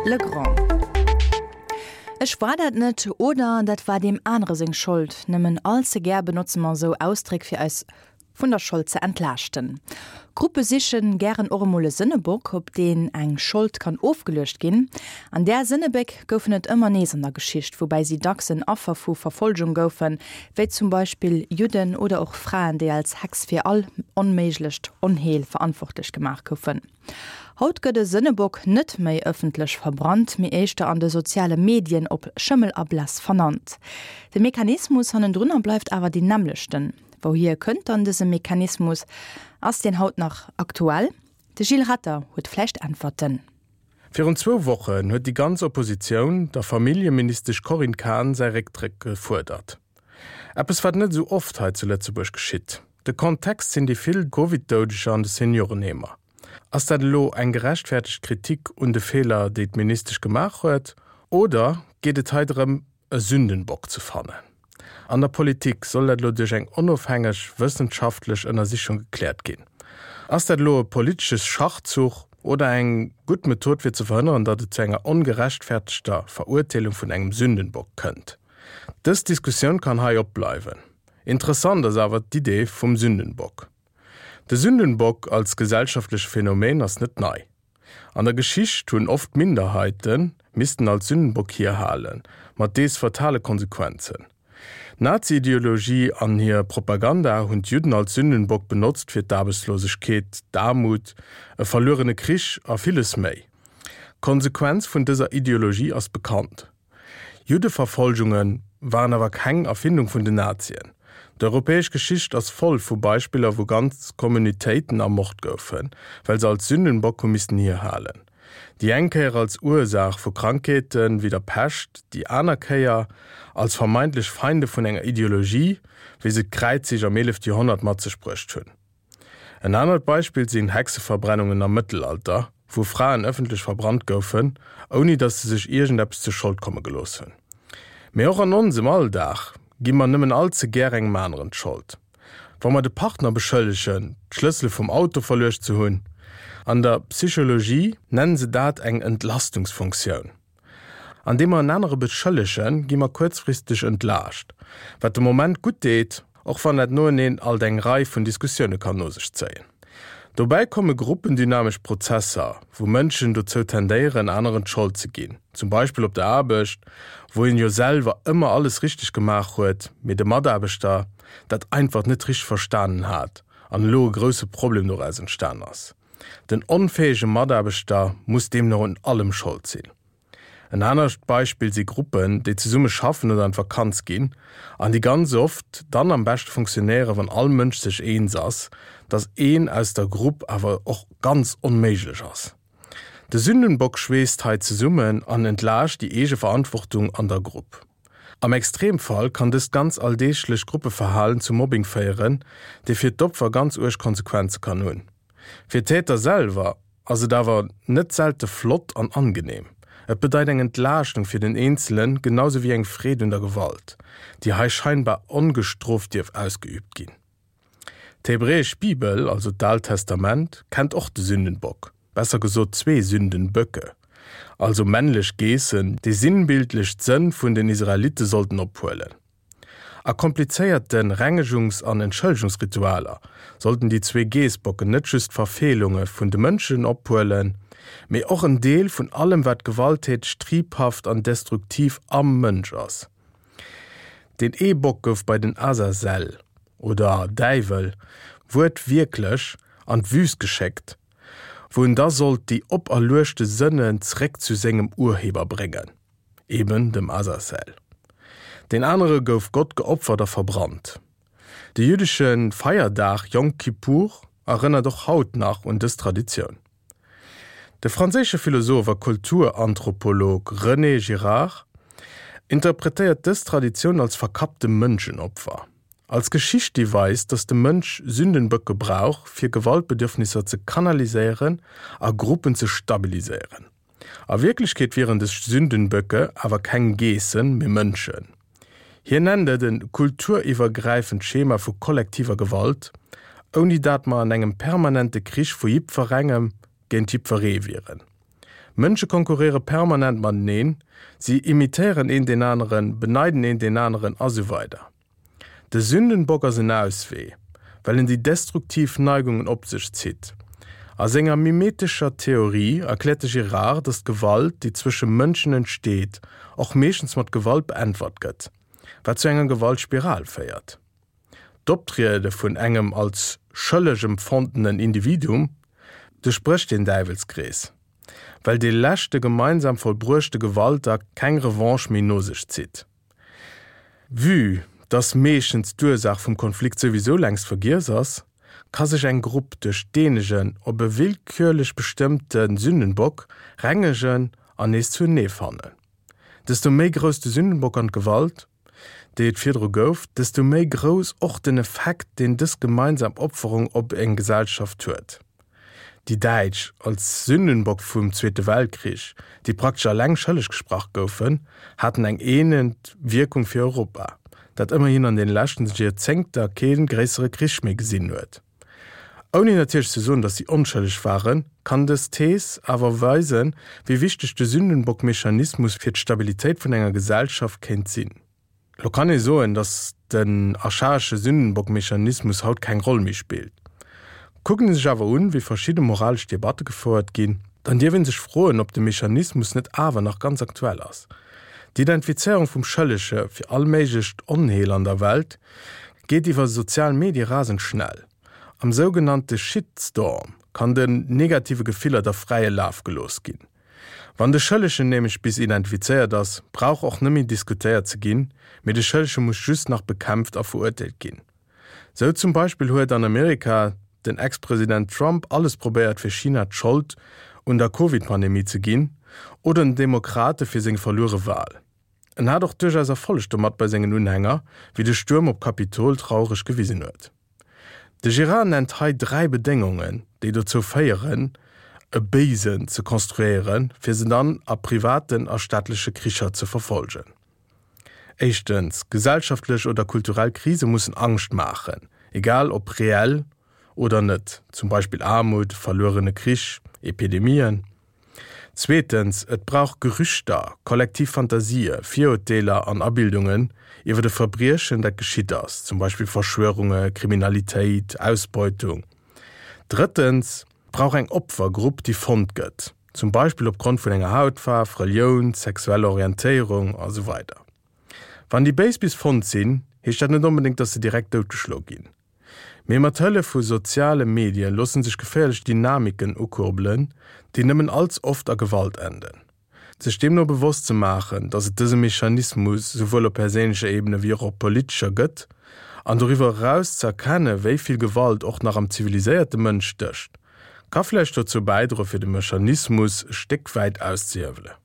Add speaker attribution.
Speaker 1: Legrand. Ech war dat net oder dat war deem anere seng Schold. Nëmmen all ze gär benotze mer esou Ausdréck fir eis vun der Schold ze entlaaschten. Gruppe sichen gären och emol e Sënnebock, op deen eng Schold kann ofgeluecht ginn. An där Sënnebéck goufen et ëmmer nees an der Geschicht, woubäi si dacks en Affer vu Verfolgung goufen, wéi zum Beispill Judden oder och Fraen, déi als Hex fir all onméiglecht Onheel verantwortlech gemaach goufen. Haut gëtt e Sënnebock net méi ëffentlech verbrannt, mee éischter an de soziale Medien op Schëmmel a Bless vernannt. De Mechanismus hannendrunner bleift awer deen nämmlechten. Wouhier kënnt dann dëse Mechanismus? Ass deen haut nach aktuell? De Gilles Ratter huet vläicht Äntwerten.
Speaker 2: Virun zwou Wochen huet déi ganz Oppositioun der Familljeministesch Corinne Cahen säi Récktrëck gefuerdert. Eppes wat net esou oft hei zu Lëtzebuerg geschitt. De Kontext sinn déi vill Covid-Doudeger an de Seniorenheemer. Ass dat elo eng gerechtfertegt Kritik un de Feeler déi d'Ministesch gemaach huet oder geet et hei drëm e Sündenbock ze fannen. An der Politik soll dat elo duerch eng onofhängeg wëssenschaftlech Ënnersichung gekläert ginn. Ass dat elo e politesche Schachzuch oder eng gutt Method fir ze verhënneren, datt et zu enger ongerechtfertegter Verurteelung vun engem Sündenbock kënnt? Dës Diskussioun kann hei opbleiwen. Interessant ass awer d'Idee vum Sündenbock. De Sündenbock als gesellschaftleche Phänomen ass net nei. An der Geschicht hunn oft Minderheite missten als Sündenbock hierhalen, mat dees fatale Konsequenzen. D'Nazi-Ideologie an hir Propaganda hunn d'Judden als Sündenbock benotzt fir d'Aarbechtslosegkeet, d'Aarmut, e verluerene Krich a villes méi. D'Konsequenz vun dëser Ideologie ass bekannt. Juddeverfolgunge waren awer keng Erfindung vun den Nazien. D'europäesch Geschicht ass voll vu Beispiller wou ganz Communautéiten ermort goufen, well se als Sündenbock hu missten hierhalen. Déi eng Kéier als Ursaach vu Krankheete wéi der Pescht, déi aner Kéier als vermeintlech Feinde vun enger Ideologie, wéi se d'Kräizzich am 11. Joerhonnert mat sech bruecht hunn. En anert Beispill sinn Hexeverbrennungen am Mëttelalter, wou Fraen ëffentlech verbrannt goufen, ouni datt se sech iergendeppes zur Schold komme gelooss hunn. Mee och an onsem Alldag gi mer nëmmen all ze gär engem aneren d'Schold. Wa mer de Partner beschëllegen, d'Schlëssele vum Auto verluecht ze hunn. An der Psychologie nennen se dat eng Entlastungsfunktioun. Andeem mer en anere beschëllegen, gi mer kuerzfristeg entlaascht, wat de Moment gutt deet, och wann dat noeneen alt eng Rei vun Diskussioune kann no sech zéien. Dobäi komme gruppendynamesch Prozesser, wou Mënschen dozou tendéieren, aneren d'Schold ze ginn, zum Beispill op der Aarbecht, wou een jo selwer ëmmer alles richteg gemaach huet, mee de Mataarbechter dat einfach net richteg verstanen hat an elo e grousse Problem doraus entstan ass. Den onfäege Mataarbechter muss deemno un allem Schold sinn. En anert Beispill si Gruppen, déi zesumme schaffen oder an d'Vakanz ginn an déi ganz oft dann am beschte funktionéieren, wann all Mënsch sech eens ass, dass een aus der Grupp awer och ganz onméiglech ass. De Sündenbock schweesst hei zesummen an entlaascht déi eege Verantwortung an der Grupp. Am Extremfall kann dëst ganz alldeeglecht Gruppeverhalen zu Mobbing féieren, dee fir d'Opfer ganz uerg Konsequenze kann hunn. Fir d'Täter selwer ass et awer net selte flott an angenehm. Et bedeit eng Entlaaschtung fir den Eenzelen, genau sou wéi eng Freed un der Gewalt, déi hei scheinbar ongestrooft dierf ausgeübt ginn. D'hebräesch Bibel, also d'Aalt Testament, kennt och de Sündenbock, besser gesot zwee Sündenböcke, also männlech Geessen, déi sinnbildlech d'Sënn vun den Israelitte sollten ophuelen. A komplizéierte Rengegungs an Entschëllegungsritualer sollten déi zwee Geessbocken net just d'Verfeelunge vun de Mënschen ophuelen, mee och en Deel vun allem wat gewalttäteg, triebhaft an destruktiv am Mënsch ass. Deen ee Bock gouf bei den Azazel, oder Däiwel, wuertwierklech an d'Wüst geschéckt, wou en da sollt déi operluechte Sënnen zeréck zu sengem Urheber bréngen. eben dem Azazel. Deen anere gouf Gott geopfert a verbrannt. De jüddesche Feierdag Yom Kippur erënnert och haut nach un dës Traditioun. De franséische Philosoph a Kulturanthropolog René Girard interpretéiert dës Traditioun als verkappte Mënschenopfer, als Geschicht déi weist, datt de Mënsch Sündenböcke brauch, fir Gewaltbedürfnisser ze kanaliséieren a Gruppen ze stabiliséieren. A Wierklechkeet wieren des Sündenböcke awer keng Geessen, mee Mënschen. Hien nennt et e kulturiwwergräifend Schema vu kollektiver Gewalt, ouni dat mer an engem permanente Krich vu jippferengem géint jippferee wieren. Mënsche konkurréiere permanent mateneen, si imitéieren een deen aneren, beneiden een deen aneren a sou weider. De Sündenbock ass en Auswee, well en déi destruktiv Neigungen op sech zitt. A senger mimetescher Theorie erkläert de Girard, datt d'Gewalt, déi zwësche Mënschen entsteet, och meeschtens mat Gewalt beäntwert gëtt, wat zu enger Gewaltspiral féiert. D'Optriede vun engem als schëlleg empfondenen Individuum duerchbrécht deen Däiwelskrees, well dee leschte gemeinsam vollbruechte Gewaltakt keng Revanche méi no sech zitt. Vue dass meeschtens d'Ursaach vum Konflikt souwisou längst vergiess ass, ka sech eng Grupp duerch deenegen op e willkürlech bestëmmte Sündenbock rengegen an nees zuenee fannen. Desto méi grouss de Sündenbock an d'Gewalt, déi et virdru gouf, desto méi grouss och den Effekt, deen dës gemeinsam Opferung op eng Gesellschaft huet. Déi Däitsch als Sündenbock vum Zweete Weltkrich, déi praktesch alleng schëlleg gesprach goufen, haten eng eenend Wierkung fir Europa, dat ëmmerhin an den leschten Joerzéngter kee gréissere Krich méi gesinn huet. Ouni natierlech ze soen, datt si onschëlleg waren, kann dës Thees awer weisen, wéi wichteg de Sündenbock-Mechanismus fir d'Stabilitéit vun enger Gesellschaft kéint sinn. Lo kann ee soen, datt den archaesche Sündenbock-Mechanismus haut keng Roll méi spillt. Kuckt ee sech awer un, wéi verschidde moralesch Debatte gefouert ginn, dann dierf ee sech froen, ob de Mechanismus net awer nach ganz aktuell ass. D'Identifizéierung vum Schëllege fir all méiglecht Onheel an der Welt geet iwwer sozial Medie rasend schnell. Am sougenannte Shitstorm kann den negative Gefiller da fräie Laf gelooss ginn. Wann de Schëllegen nämlech bis identifizéiert ass, brauch och net méi diskutéiert ze ginn, mee de Schëllege muss just nach bekämpft a verurteelt ginn. Sou zum Beispill huet an Amerika den Ex-President Trump alles probéiert fir China d'Schold un der Covid-Pandemie ze ginn oder den Demokrate fir seng verluere Wal. En hat och duerchaus Erfolleg domat bei sengen Unhänger, wéi de Stuerm op Kapitol traureg gewisen huet. De Girard nennt hei 3 Bedéngungen, déi dozou féieren, e Béisen ze konstruéieren, fir se dann a privaten a staatleche Kricher ze verfolgen. Éischtens, gesellschaftlech oder kulturell Krise mussen Angscht maachen, egal ob reell oder net, zum Beispill Aarmut, verluerene Krich, Epidemien. Zweetens, et brauch Gerüchter, kollektiv Fantasië, Virurteeler an Abildungen iwwer e Verbriechen, dat geschitt ass, zum Beispill Verschwörunge, Kriminalitéit, Ausbeutung. Drëttens, et brauch eng Opfergrupp, déi fonnt gëtt, zum Beispill opgrond vun enger Hautfaarf, Relioun, sexueller Orientéierung a sou weider. Wann déi Béis bis fonnt sinn, heescht dat net onbedéngt, dass se direkt doutgeschlo ginn. Mee mat Hëllef vu soziale Medie loosse sech geféierlech Dynamiken ukurbelen, déi nëmmen allz oft a Gewalt enden. Sech deemno bewosst ze maachen, datt et dëse Mechanismus souwuel op perséinlecher Ebene wéi och op politescher gëtt, an doriwwer eraus ze erkenne wéi vill Gewalt och nach am ziviliséierte Mënsch stécht, ka vläicht dozou bäidroe fir de Mechanismus e Stéck wäit auszehiewelen.